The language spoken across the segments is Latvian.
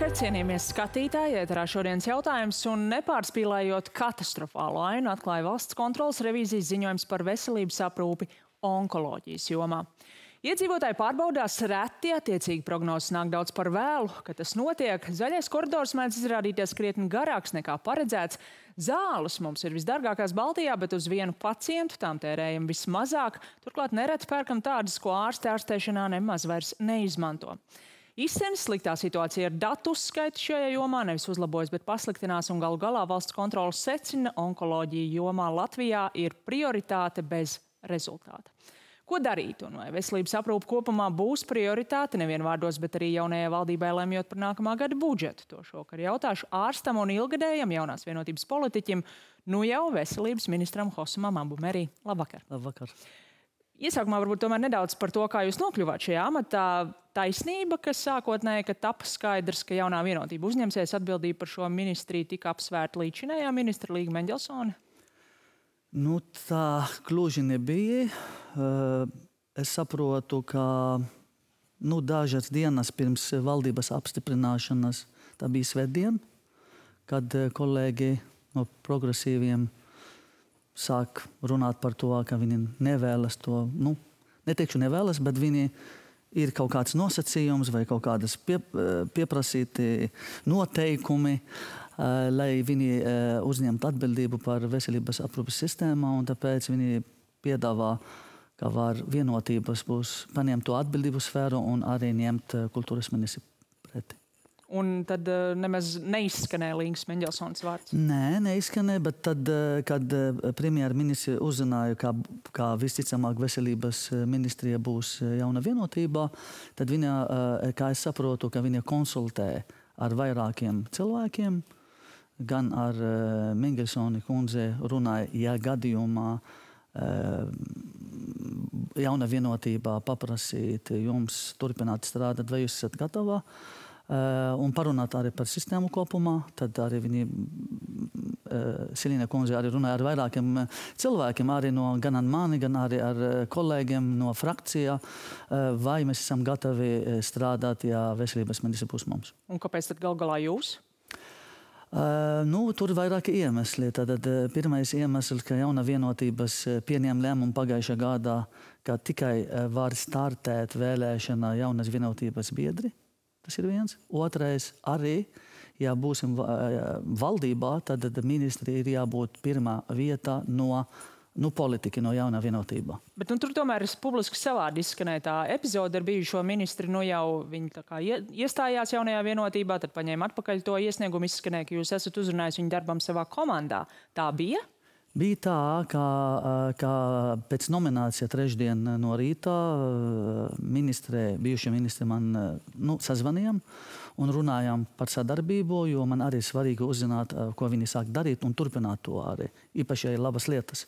Labvakar, cienījamies skatītāji, ēterā šodienas jautājums un nepārspīlējot katastrofālu ainu atklāja valsts kontrolas revīzijas ziņojums par veselības aprūpi onkoloģijas jomā. Iedzīvotāji pārbaudās reti, attiecīgi prognozes nāk daudz par vēlu, kad tas notiek. Zaļais koridors mēdz izrādīties krietni garāks nekā paredzēts. Zāles mums ir visdārgākās Baltijā, bet uz vienu pacientu tām tērējam vismazāk. Turklāt nereti pērkam tādas, ko ārsti ārstēšanā nemaz vairs neizmanto. Izsenis sliktā situācija ar datu uzskaitu šajā jomā nevis uzlabojas, bet pasliktinās, un galu galā valsts kontrolas secina, onkoloģija jomā Latvijā ir prioritāte bez rezultāta. Ko darīt, un vai veselības aprūpe kopumā būs prioritāte nevien vārdos, bet arī jaunajai valdībai lemjot par nākamā gada budžetu? To šovakar jautāšu ārstam un ilgadējam jaunās vienotības politiķim, nu jau veselības ministram Hossamam Abumerī. Labvakar! Labvakar! Iesākumā varbūt tomēr nedaudz par to, kā jūs nokļuvāt šajā amatā. Taisnība, ka sākotnēji, kad tapa skaidrs, ka jaunā vienotība uzņemsies atbildību par šo ministriju, tika apsvērta līdzinējā ministra Līga Mendelsone? Nu, tā gluži nebija. Es saprotu, ka dažas dienas pirms valdības apstiprināšanas, tā bija svētdiena, kad kolēģi no progresīviem sāk runāt par to, ka viņi nevēlas to, neteikšu nevēlas, bet viņi ir kaut kāds nosacījums vai kaut kādas pieprasīti noteikumi, lai viņi uzņemtu atbildību par veselības aprūpes sistēmu, un tāpēc viņi piedāvā, ka var vienotības būs paņemt to atbildību sfēru un arī ņemt kultūras ministri preti. Un tad nemaz neizskanēja Līgas Mendelsones vārds? Nē, neizskanēja, bet tad, kad premjerministri uzzināja, ka visticamāk veselības ministrija būs jauna vienotībā, tad viņa, kā es saprotu, ka viņa konsultē ar vairākiem cilvēkiem, gan ar Mendelsoni kundze runāja, ja gadījumā jauna vienotībā paprasīt jums turpināt strādāt, vai jūs esat gatavā? Un parunāt arī par sistēmu kopumā. Tad arī viņi, Silīna kundze, arī runāja ar vairākiem cilvēkiem, arī gan ar mani, gan arī ar kolēģiem no frakcijā, vai mēs esam gatavi strādāt, ja veselības ministri būs mums. Un kāpēc tad gal galā jūs? Tur ir vairāki iemesli. Tad pirmais iemesls, ka jauna vienotības pieņem lēmumu pagājušā gadā, ka tikai var startēt vēlēšana jaunas vienotības biedri. Tas ir viens. Otrais arī, ja būsim valdībā, tad ministri ir jābūt pirmā vietā no politika, no jaunā vienotībā. Bet tur tomēr publiski savādi izskanēja tā epizode ar bijušo ministri. Jau viņi tā kā iestājās jaunajā vienotībā, tad paņēma atpakaļ to iesniegumu, izskanēja, ka jūs esat uzrunājis viņu darbam savā komandā. Tā bija? Bija tā, ka pēc nominācija trešdien no rīta bijušie ministri man sazvanījām un runājām par sadarbību, jo man arī svarīgi uzzināt, ko viņi sāk darīt un turpināt to arī. Īpaši ir labas lietas.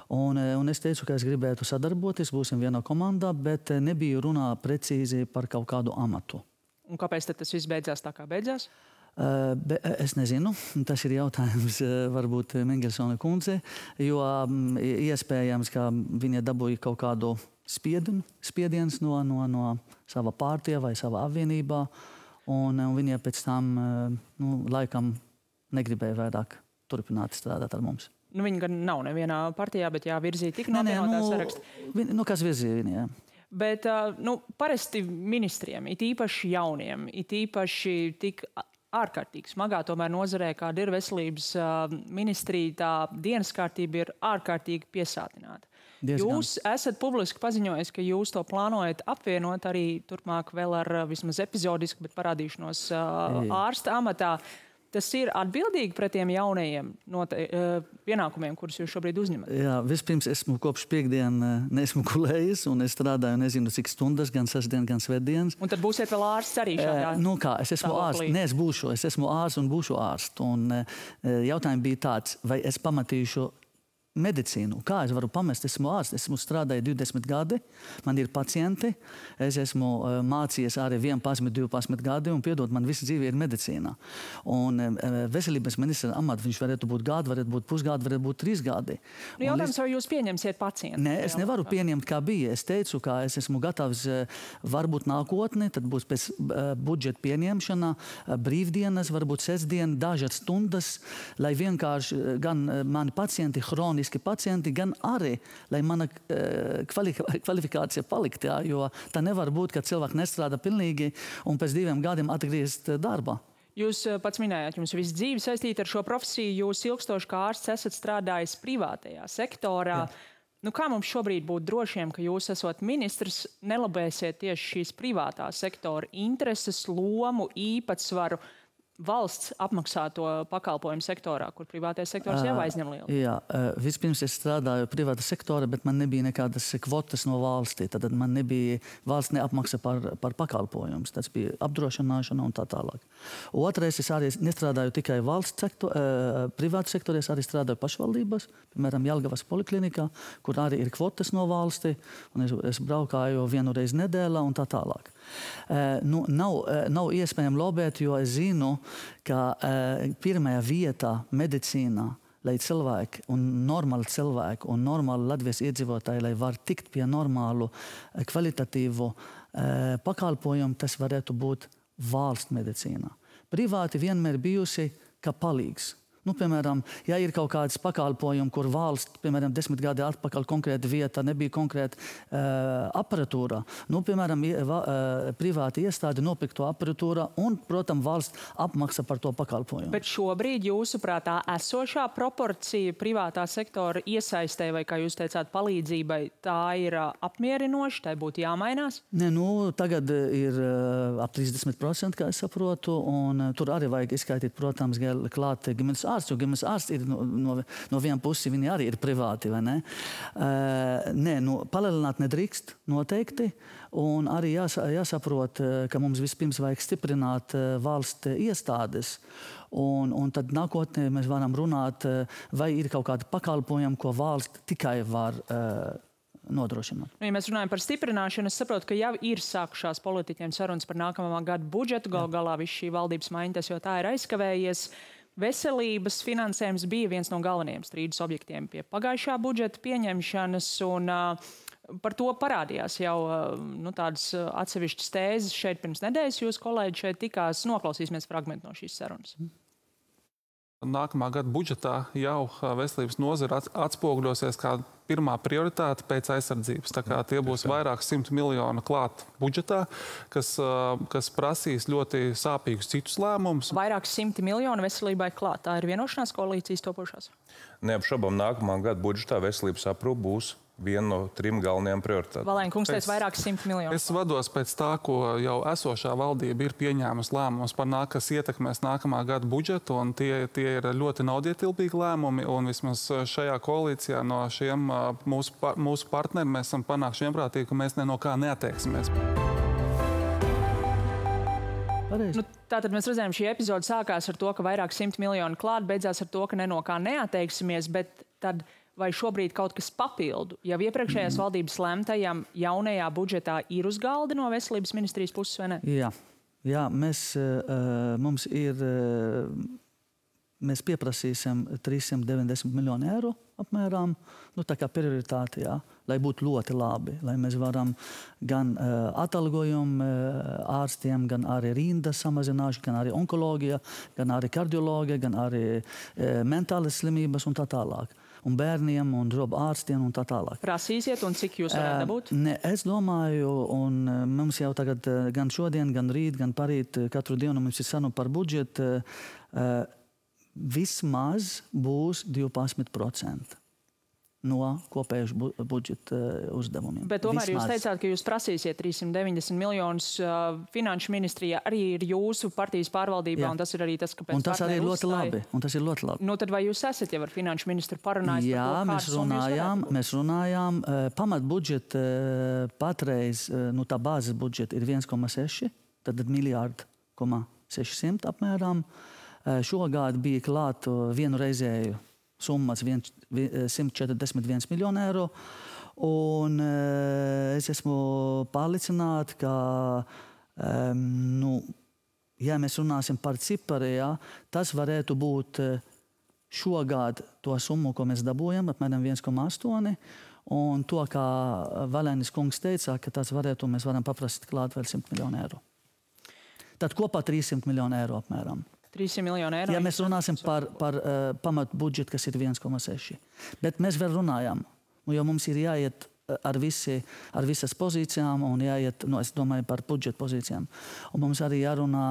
Un es teicu, ka es gribētu sadarboties, būsim vienā komandā, bet nebija runā precīzi par kaut kādu amatu. Un kāpēc tad tas viss beidzās tā, kā beidzās? Es nezinu, tas ir jautājums varbūt Mendelsone kundze, jo iespējams, ka viņa dabūja kaut kādu spiediens no sava partija vai sava apvienībā, un viņa pēc tam laikam negribēja vairāk turpināt strādāt ar mums. Viņa gan nav nevienā partijā, bet virzīja tik no vienotā saraksta. Kas virzīja viņa, jā. Bet parasti ministriem, it īpaši jauniem, it īpaši tik ārkārtīgi smagā tomēr nozarē, kāda ir veselības ministrija, tā dienas kārtība ir ārkārtīgi piesātināta. Jūs esat publiski paziņojis, ka jūs to plānojat apvienot arī turpmāk vēl ar vismaz epizodiski, bet parādīšanos ārsta amatā. Tas ir atbildīgi pret tiem jaunajiem pienākumiem, kurus jūs šobrīd uzņemat? Jā, vispirms esmu kopš piekdienu neesmu gulējis, un es strādāju nezinu cik stundas, gan sestdien, gan svētdienas. Un tad būsiet vēl ārsts arī šādā? Es esmu ārsts, es esmu ārsts un būšu ārsts. Un jautājums bija tāds, vai es pamatīšu medicīnu. Kā es varu pamest? Esmu ārsts, esmu strādājis 20 gadi, man ir pacienti, es esmu mācījies arī 11, 12 gadi, un piedod, man visa dzīve ir medicīnā. Un veselības ministra amats, viņš varētu būt gadu, varētu būt pusgadu, varētu būt 3 gadi. Jautājums, vai jūs pieņemsiet pacientu? Nē, es nevaru pieņemt, kā bija. Es teicu, ka es esmu gatavs varbūt nākotnē, tad būs pēc budžeta pieņemšana, brīvdienas, varbūt sestdien, dažas stundas, lai vienkārši gan mani pacienti, pacienti, gan arī, lai mana kvalifikācija palikt, jā, jo tā nevar būt, ka cilvēki nestrādā pilnīgi un pēc 2 gadiem atgriezt darbā. Jūs pats minējāt, jums visu dzīvi saistīta ar šo profesiju, jūs ilgstoši kā ārsts esat strādājis privātajā sektorā. Jā. Kā mums šobrīd būt drošiem, ka jūs esot ministrs, nelabēsiet tieši šīs privātā sektora intereses, lomu, īpatsvaru valsts apmaksāto pakalpojumu sektorā, kur privātais sektors jau aizņem lielu? Jā, vispirms es strādāju privāta sektora, bet man nebija nekādas kvotas no valstī. Tad man nebija valsts neapmaksa par pakalpojumus. Tas bija apdrošināšana un tā tālāk. Otrais, es arī nestrādāju tikai valsts privāta sektorā, es arī strādāju pašvaldības, piemēram, Jelgavas poliklinikā, kur arī ir kvotas no valstī, un es braukāju 1 reizi nedēļā un tā tālāk. Nav iespējams lobēt, jo es zinu, ka pirmajā vietā medicīnā, lai cilvēki un normāli cilvēki un normāli Latvijas iedzīvotāji, lai var tikt pie normālu kvalitatīvu pakalpojumu, tas varētu būt valsts medicīnā. Privāti vienmēr bijusi kā palīgs. Piemēram, ja ir kaut kāds pakalpojums, kur valsts, piemēram, 10 gadi atpakaļ konkrēta vieta, nebija konkrēta aparatūra, piemēram, privāti iestādi nopirkto aparatūra un, protams, valsts apmaksa par to pakalpojumu. Bet šobrīd jūsuprāt tā esošā proporcija privātā sektora iesaistē vai, kā jūs teicāt, palīdzībai, tā ir apmierinoša, tai būtu jāmainās? Nē, tagad ir ap 30%, kā es saprotu, un tur arī vajag izskaitīt, protams, klāt ģimenes ārsts, jo ģimenes ārsts ir no viena puses, viņi arī ir privāti, vai ne? Palielināt nedrīkst noteikti, un arī jāsaprot, ka mums vispirms vajag stiprināt valsts iestādes, un tad nākotnē mēs varam runāt, vai ir kaut kādi pakalpojumi, ko valsts tikai var nodrošināt. Ja mēs runājam par stiprināšanu, es saprotu, ka jau ir sākušās politiķiem sarunas par nākamā gada budžetu, galā viss šī valdības maiņa, tas jau tā ir aizkavējies. Veselības finansējums bija viens no galvenajiem strīdus objektiem pie pagājušā budžeta pieņemšanas, un par to parādījās jau tādas atsevišķas tēzes šeit pirms nedēļas. Jūs kolēģi šeit tikās, noklausīsimies fragmentu no šīs sarunas. Nākamā gada budžetā jau veselības nozara atspoguļosies kā pirmā prioritāte pēc aizsardzības. Tā kā tie būs vairāk 100 miljonu klāt budžetā, kas prasīs ļoti sāpīgus citus lēmumus. Vairāk 100 miljonu veselībai klāt. Tā ir vienošanās koalīcijas topošās? Neapšaubām nākamā gada budžetā veselības aprūpe būs viena no 3 galvenajām prioritātēm. Valēņa kungs teica vairāk 100 miljonu. Es vados pēc tā, ko jau esošā valdība ir pieņēmusi lēmumus par kas ietekmēs nākamā gada budžetu, un tie ir ļoti naudietilpīgi lēmumi, un vismaz šajā koalīcijā no šiem mūsu partneriem mēs esam panākuši vienprātīgi, ka mēs no kā neatteiksimies. Tātad mēs redzējām, šī epizode sākās ar to, ka vairāk 100 miljonu klāt, beidzās ar to, ka no kā neatteiksimies, bet tad vai šobrīd kaut kas papildu jau iepriekšējās valdības lemtajam jaunajā budžetā ir uz galda no veselības ministrijas puses, vai ne? Jā, mēs pieprasīsim 390 miljonu eiro apmēram, tā kā prioritāte, lai būtu ļoti labi, lai mēs varam gan atalgojumu ārstiem, gan arī rindas samazināšanu, gan arī onkoloģija, gan arī kardioloģija, gan arī mentālas slimības un tā tālāk. Un bērniem, un ārstiem un tā tālāk. Prasīsiet, un cik jūs varētu dabūt? Es domāju, un mums jau tagad gan šodien, gan rīt, gan parīt, katru dienu mums ir saruna par budžetu, vismaz būs 12% no kopējuša budžeta uzdevumiem. Bet tomēr jūs teicāt, ka jūs prasīsiet 390 miljonus finanšu ministrijā, arī ir jūsu partijas pārvaldībā, un tas ir arī tas, kāpēc un tas arī ir ļoti labi. Un tas ir ļoti labi. Tad vai jūs esat jau ar finanšu ministru parunājis par to, mēs runājām. Pamatbudžeta patreiz, tā bāzes budžeta ir 1,6, tad miljārdu 600 apmēram. Šogad bija klāt vienu reizēju summas 141 miljonu eiro. Un es esmu pārliecināta, ka, ja mēs runāsim par cipari, tas varētu būt šogad to summu, ko mēs dabūjam, apmēram 1,8. Un to, kā Valēnis kungs teica, ka tas varētu, mēs varam paprasīt klāt vēl 100 miljonu eiro. Tad kopā 300 miljonu eiro apmēram. 300 miljonu eiro. Ja mēs runāsim par pamatu budžetu, kas ir 1,6. Bet mēs vēl runājam, jo mums ir jāiet ar visas pozīcijām un jāiet, es domāju, par budžeta pozīcijām. Un mums arī jārunā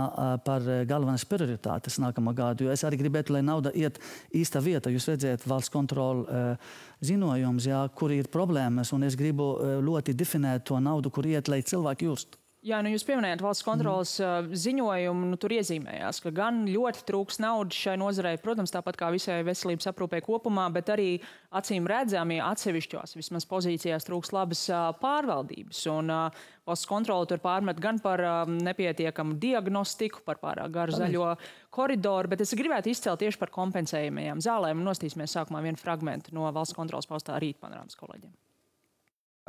par galvenās prioritātes nākamā gadu, jo es arī gribētu, lai nauda iet īsta vieta. Jūs redzēt valsts kontrola ziņojums, kur ir problēmas, un es gribu ļoti definēt to naudu, kur iet, lai cilvēki just. Jā, jūs pieminējāt valsts kontrolas ziņojumu, tur iezīmējās, ka gan ļoti trūks naudas šai nozarei, protams, tāpat kā visai veselības aprūpei kopumā, bet arī acīm redzami atsevišķos vismaz pozīcijās trūks labas pārvaldības. Un valsts kontrola tur pārmet gan par nepietiekamu diagnostiku, par pārāk garu zaļo koridoru, bet es gribētu izcelt tieši par kompensējumajām zālēm. Nostīsimies sākumā vienu fragmentu no valsts kontrolas paustā Rītpanorāmas kolēģiem.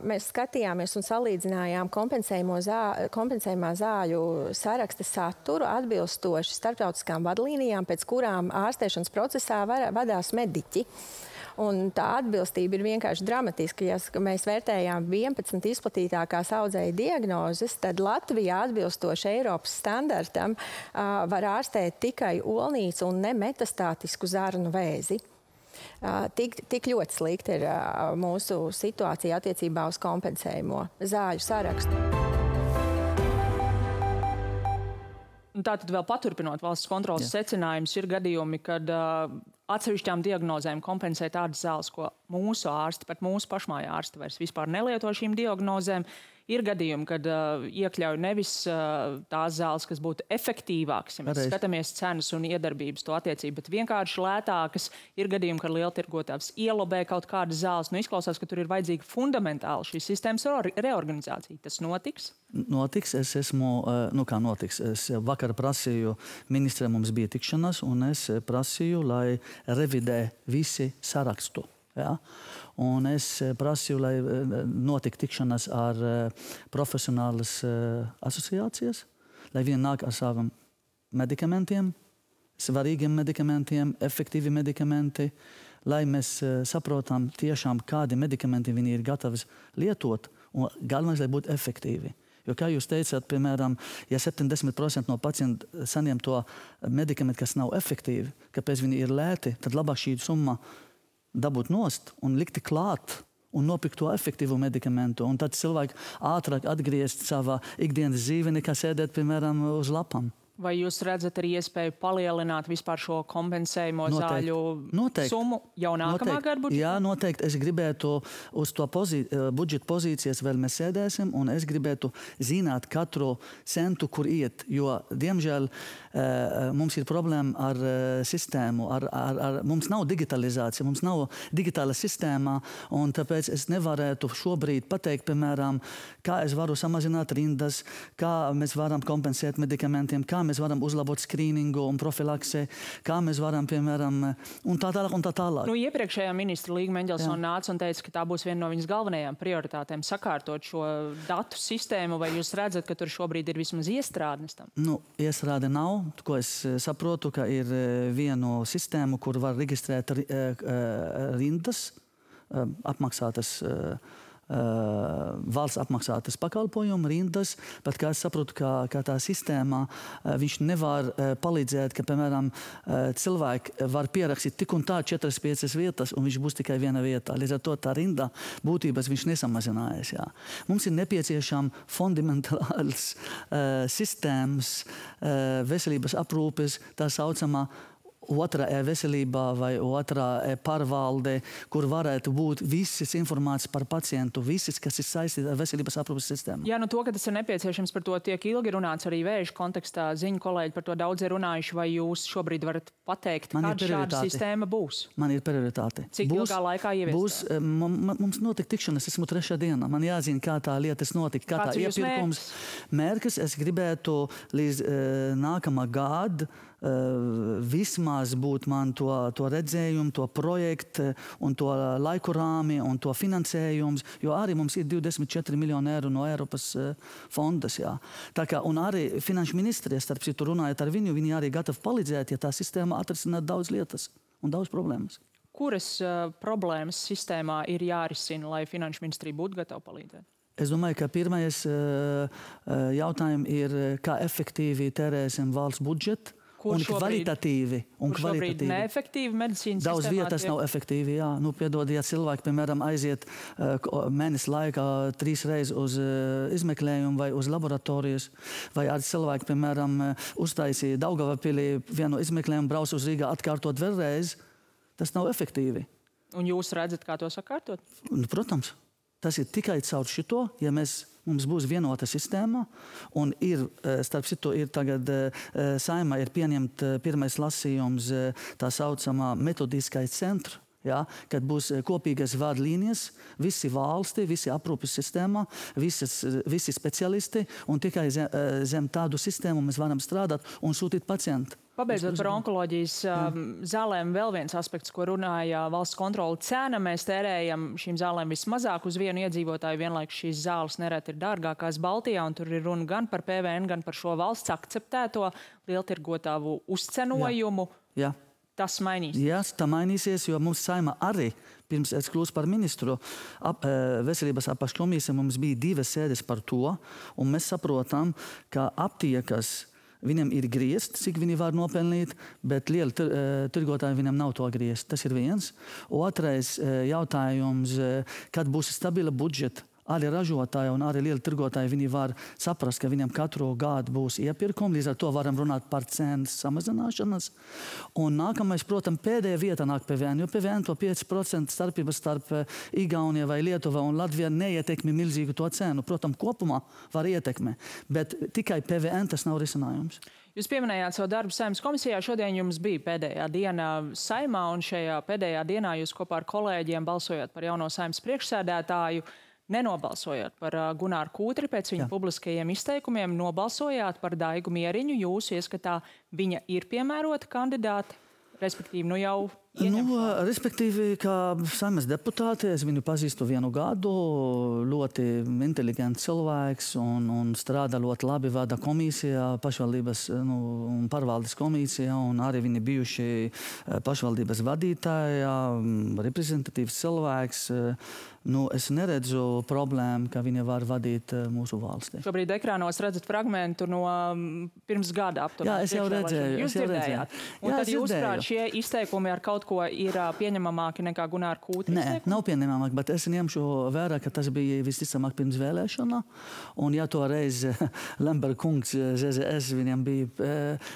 Mēs skatījāmies un salīdzinājām kompensējumā zāļu saraksta saturu atbilstoši starptautiskām vadlīnijām, pēc kurām ārstēšanas procesā vadās mediķi. Un tā atbilstība ir vienkārši dramatiska. Ja mēs vērtējām 11 izplatītākās audzēju diagnozes, tad Latvijā atbilstoši Eiropas standartam var ārstēt tikai olnīcu un nemetastātisku zarnu vēzi. Tik ļoti slikta ir mūsu situācija attiecībā uz kompensējumu zāļu sarakstu. Tātad vēl paturpinot valsts kontrolas secinājumus, ir gadījumi, kad atsevišķām diagnozēm kompensē tādas zāles, ko mūsu ārsti, pat mūsu pašmāja ārsti vairs vispār nelieto šīm diagnozēm. Ir gadījumi, kad iekļauj nevis tās zāles, kas būtu efektīvākas, ja mēs skatāmies cenas un iedarbības to attiecību, bet vienkārši lētākas. Ir gadījumi, kad lieltirgotājs ielobē kaut kādas zāles. Izklausās, ka tur ir vajadzīga fundamentāla šīs sistēmas reorganizācija. Tas notiks? Notiks. Es esmu, kā notiks? Es vakar prasīju, ministrē mums bija tikšanās, un es prasīju, lai revidē visi sarakstu. Ja? Un es prasīju, lai notika tikšanās ar profesionālas asociācijas, lai viņi nāk ar saviem medikamentiem, svarīgiem medikamentiem, efektīvi medikamenti, lai mēs saprotam tiešām, kādi medikamenti viņi ir gatavi lietot, un galvenais, lai būtu efektīvi. Jo, kā jūs teicāt, piemēram, ja 70% no pacientu saņem to medikamentu, kas nav efektīvi, kāpēc viņi ir lēti, tad labāk šī summa dabūt nost un likti klāt un nopirkt to efektīvu medikamentu. Un tad cilvēki ātrāk atgriezt savā ikdienas dzīvi, nekā sēdēt, piemēram, uz lapām. Vai jūs redzat arī iespēju palielināt vispār šo kompensējumu zāļu summu jau nākamā gada budžetā? Jā, noteikti. Es gribētu uz to budžeta pozīcijas vēl mēs sēdēsim, un es gribētu zināt katru centu, kur iet. Jo, diemžēl, mums ir problēma ar sistēmu. Mums nav digitalizācija, mums nav digitāla sistēma, un tāpēc es nevarētu šobrīd pateikt, piemēram, kā es varu samazināt rindas, kā mēs varam kompensēt medikamentiem, kā mēs varam uzlabot skrīningu un profilaksi, kā mēs varam, piemēram, un tā tālāk, un tā tālāk. Iepriekšējā ministra Līga Meņģelsona nāca un teica, ka tā būs viena no viņas galvenajām prioritātēm sakārtot šo datu sistēmu, vai jūs redzat, ka tur šobrīd ir vismaz iestrādnes tam? Iestrāde nav, ko es saprotu, ka ir viena sistēma, kur var reģistrēt rindas, apmaksātas valsts apmaksātas pakalpojumu rindas, bet kā es saprotu, ka tā sistēmā viņš nevar palīdzēt, ka, piemēram, cilvēki var pierakstīt tik un tā 4-5 vietas, un viņš būs tikai viena vietā. Līdz ar to tā rinda būtības viņš nesamazinājas. Jā. Mums ir nepieciešama fundamentāls sistēmas veselības aprūpes, tā saucamā otrā veselībā vai otrā pārvalde, kur varētu būt visas informācijas par pacientu, visas, kas ir saistīta ar veselības aprūpes sistēmu. Jā, to, ka tas ir nepieciešams, par to tiek ilgi runāts arī vēža kontekstā. Ziņu kolēģi par to daudz ir runājuši, vai jūs šobrīd varat pateikt, kāda šāda sistēma būs? Man ir prioritāte. Cik ilgā laikā ieviest? Mums notika tikšanas, esmu 3. dienā. Man jāzina, kā tā lietas notika, kā tā iepirkums. Mērķis es gribētu līdz nākamā gada vismaz būt man to redzējumu, to projektu un to laiku rāmi un to finansējums, jo arī mums ir 24 miljoni eiro no Eiropas fondas. Jā. Tā kā, un arī finanšu ministrija, starp citu runājot ar viņu, viņi arī gatavi palīdzēt, ja tā sistēma atrisināt daudz lietas un daudz problēmas. Kuras problēmas sistēmā ir jārisina, lai finanšu ministrija būtu gatava palīdzēt? Es domāju, ka pirmais jautājums ir, kā efektīvi tērēsim valsts budžetu. Un kvalitatīvi. Šobrīd neefektīvi medicīnas daudz vietas nav efektīvi, jā. Nu, piedod, ja cilvēki, piemēram, aiziet mēnesi laikā 3 reizes uz izmeklējumu vai uz laboratorijas, vai arī cilvēki, piemēram, uztaisīja Daugavapilī vienu izmeklējumu, brauc uz Rīgā atkārtot vēlreiz, tas nav efektīvi. Un jūs redzat, kā to sakārtot? Protams. Tas ir tikai caur šito, ja mums būs vienota sistēma, un ir, starp citu, ir tagad Saeimā ir pieņemt pirmais lasījums tā saucamā metodiskais centra, ja, kad būs kopīgas vadlīnijas, visi valsti, visi aprūpes sistēmā, visi speciālisti, un tikai zem tādu sistēmu mēs varam strādāt un sūtīt pacientu. Pabeidzot par onkoloģijas zālēm, vēl viens aspekts, ko runāja valsts kontrole cena. Mēs tērējam šīm zālēm vismazāk uz vienu iedzīvotāju. Vienlaikus šīs zāles nereti ir dārgākās Baltijā, un tur ir runa gan par PVN, gan par šo valsts akceptēto lieltirgotāju uzcenojumu. Jā. Tas mainīsies? Jā, tā mainīsies, jo mums Saeimā arī, pirms es kļūstu par ministru, veselības apakškomisija mums bija 2 sēdes par to, un mēs saprotam, ka aptiekas viņam ir griezt, cik viņi var nopelnīt, bet lieli tirgotāji viņam nav to griezt. Tas ir viens. Otrais jautājums, kad būs stabila budžeta, arī ražotāji un arī lieli tirgotāji, viņi var saprast, ka viņam katru gadu būs iepirkumi, līdz ar to varam runāt par cenas samazināšanas. Un nākamais, protams, pēdējā vieta nāk PVN, jo PVN to 5% starpības starp Igauniju vai Lietuva un Latviju neietekmi milzīgu to cenu. Protams, kopumā var ietekmi, bet tikai PVN tas nav risinājums. Jūs pieminējāt savu darbu Saeimas komisijā. Šodien jums bija pēdējā diena Saeimā, un šajā pēdējā dienā jūs kopā ar kolēģiem balsojāt par jauno Saeimas priekšsēdētāju. Nenobalsojāt par Gunāru Kūtri pēc viņa publiskajiem izteikumiem, nobalsojāt par Daigu Mieriņu. Jūsu ieskatā viņa ir piemērota kandidāte, respektīvi nu jau ieņemšana? Respektīvi, kā Saeimas deputāte, es viņu pazīstu 1 gadu, ļoti inteliģents cilvēks un strādā ļoti labi, vada komisijā, pašvaldības un pārvaldes komisijā, un arī viņi bijuši pašvaldības vadītāji, reprezentatīvs cilvēks. Es neredzu problēmu, ka viņa var vadīt mūsu valsti. Šobrīd ekrānos redzat fragmentu no pirms gada aptuveni. Jā, es jau redzēju. Jūs dzirdējāt. Un tad jūs prāt, šie izteikumi ar kaut ko ir pieņemamāki nekā Gunāra Kūtra izteikumi? Nē, nav pieņemamāki, bet es ņemšu vērā, ka tas bija visticamāk pirms vēlēšana. Un ja toreiz Lemberga kungs, ZZS, viņam bija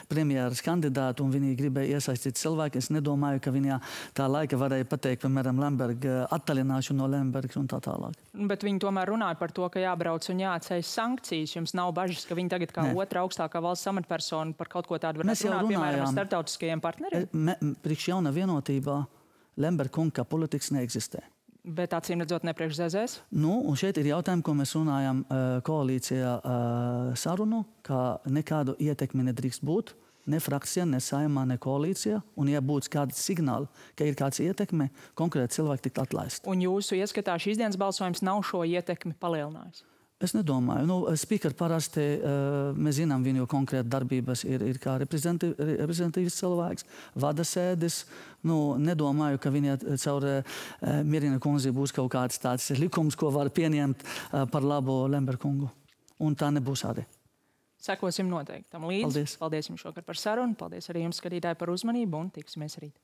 premjeras kandidāti un viņi gribēja iesaistīt cilvēku, es nedomāju, ka viņa tā laika varēja pateikt, piemēram, Lemberga attālināšanu no Lemberga un tā tālāk. Bet viņi tomēr runāja par to, ka jābrauc un jāatceļ sankcijas. Jums nav bažas, ka viņi tagad kā otra augstākā valsts amatpersona par kaut ko tādu varētu runāt, piemēram, ar starptautiskajiem partneriem? Priekš jauna vienotībā Lemberga kunga politikas neeksistē. Bet acīm redzot ne priekš ZZS? Un šeit ir jautājumi, ko mēs runājam koalīcijā sarunu, ka nekādu ietekmi nedrīkst būt. Ne frakcija, ne Saeimā, ne koalīcijā. Un ja būtu kāds signāli, ka ir kāds ietekme, konkrēti cilvēki tikt atlaist. Un jūsu ieskatā šīs dienas balsojums nav šo ietekmi palielinājis? Es nedomāju. Speaker parasti, mēs zinām viņu konkrēti darbības, ir kā reprezentatīvs cilvēks, vada sēdes. Nedomāju, ka viņa caur Mierina kundzi būs kaut kāds tāds likums, ko var pieņemt par labu Lemberga kungu. Un tā nebūs arī. Sekosim noteikti tam līdzi. Paldies. Paldies jums šokar par sarunu. Paldies arī jums, skatītāji, par uzmanību un tiksimies rīt.